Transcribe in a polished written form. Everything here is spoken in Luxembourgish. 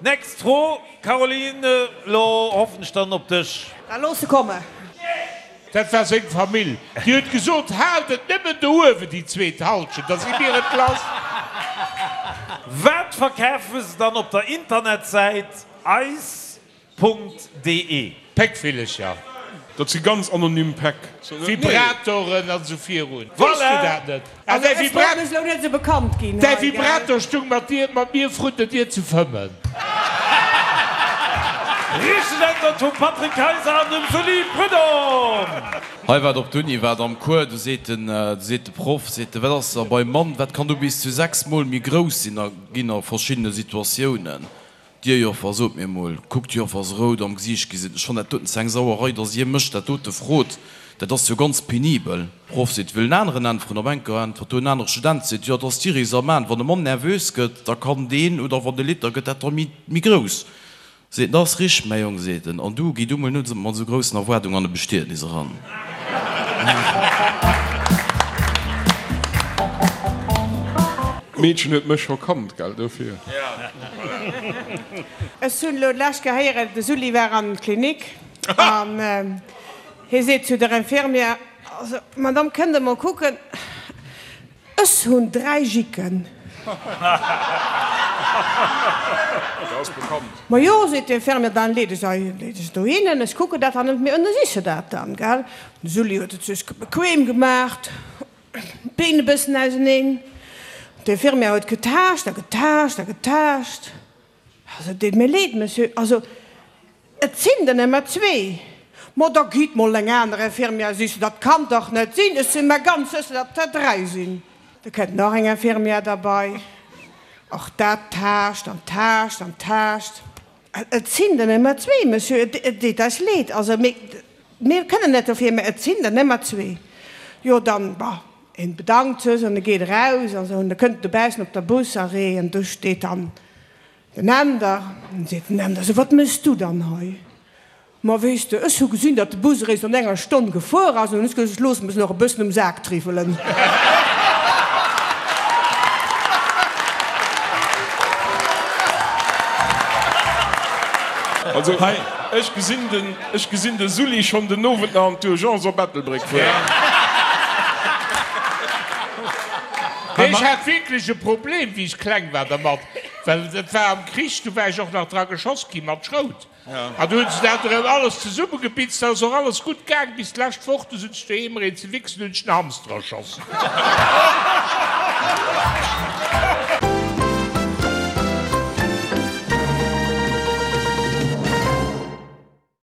Next Fro, Caroline, lo hoffen ech dann op dech. Da looss se kommen. Dat war seng Famill. Déi huet gesot, Haalt et nëmmen do uewen, déi zweet Halschent, da si mir et lass. Wat verkafe se dann op der Internetsäit eis Punkt de. Péckvillecher. Dat si ganz anonym Päck. Vibratoren an esou virun. Weess du dat net? Ah, däi Vibra Däi Vibrator stung mat dir, mat mir vrun der Dier ze fëmmen. Richteg Äntwert vum Patrick Kayser an dem Sully Prudhomme. Hei wat op d'Uni wat am Cours, du seet den, du seet de Proff, seet de, wat ass da beim Mann, wat kann do bis zu 6 mol méi grouss sinn a ginn a verschiddene Situatiounen. Dir Joffer, sot mir mol, kuckt d'Joffer ass rout am Gesiicht gi, seet, ech fannen dat doten ze eng Sauerei, dass Dir mech dat dote frot, dat ass jo ganz penibel. Proff seet, wëll en aneren äntweren, op enker äntwert do en anere Student, seet, jo, dat ass d'Iris am Aen, wann e Mann nervös gëtt, da kann deen, oder wann e litt, da gëtt dat da méi, méi grouss. Seet en, dat ass richteg, mäi Jong, seet en, an du, gi du mol net mat esou groussen Erwaardungen an e Bestietnis eran. D'Meedchen huet mech scho kannt, gell, dofir. Ech hunn elo d'lescht Kéier héieren, de Sully war an d'Klinik an hie seet zu der Infirmière, Also, Madame, kënnt Der mol kucken, ech hunn 3 Jicken. Ma jo, seet d'Infirmière, dann leet ech se dohinnen, ech kucken dat dann net méi, ënnersiche se dat dann, gell. De Sully huet et sech bequem gemaacht. D'Been e bëssen auseneen. D'Infirmière huet getaascht a getaascht a getaascht. Also, et deet mir leed, Monsieur, also, et sinn der nëmmer zwee. Ma da gitt mol eng aner Infirmière sichen, dat kann dach net sinn, ech si mer ganz sécher, datt der dräi sinn. Da kënnt nach eng Infirmière derbei, och dat taascht an taascht an taascht. Et sinn der nëmmer zwee, Monsieur, et deet eis leed, also mir, mir kënnen net dofir, mä et sinn der nëmmer zwee. Jo, dann, bah, en bedankt sech an e geet eraus an esou, an da kënnt en dobaussen op der Busarrêt an do steet dann den Änder. An seet den Änder, So, wat méchs du dann hei? Ma weess de, ech hu gesinn, datt de Bus eréischt an enger Stonn gefuer ass, an hunn ech gesot, ech loosse mech nach e bëssen um Sak triwwelen. Also, ech gesinn den, ech gesinn de Sully schonn den Owend nach an d'Urgence op Ettelbréck fueren. Nee, ech hat wierklech e Problem, wéi ech kleng war dermat, well et war am Krich, du war ech och nach dra geschoss gi mat Schrout. An du hunn se dat erëm alles zesummegebitzt, dat ass och alles gutt gaang bis d'lescht Woch, du sutz ech doheem ereen ze wichsen, hunn ech den Hamster erschoss.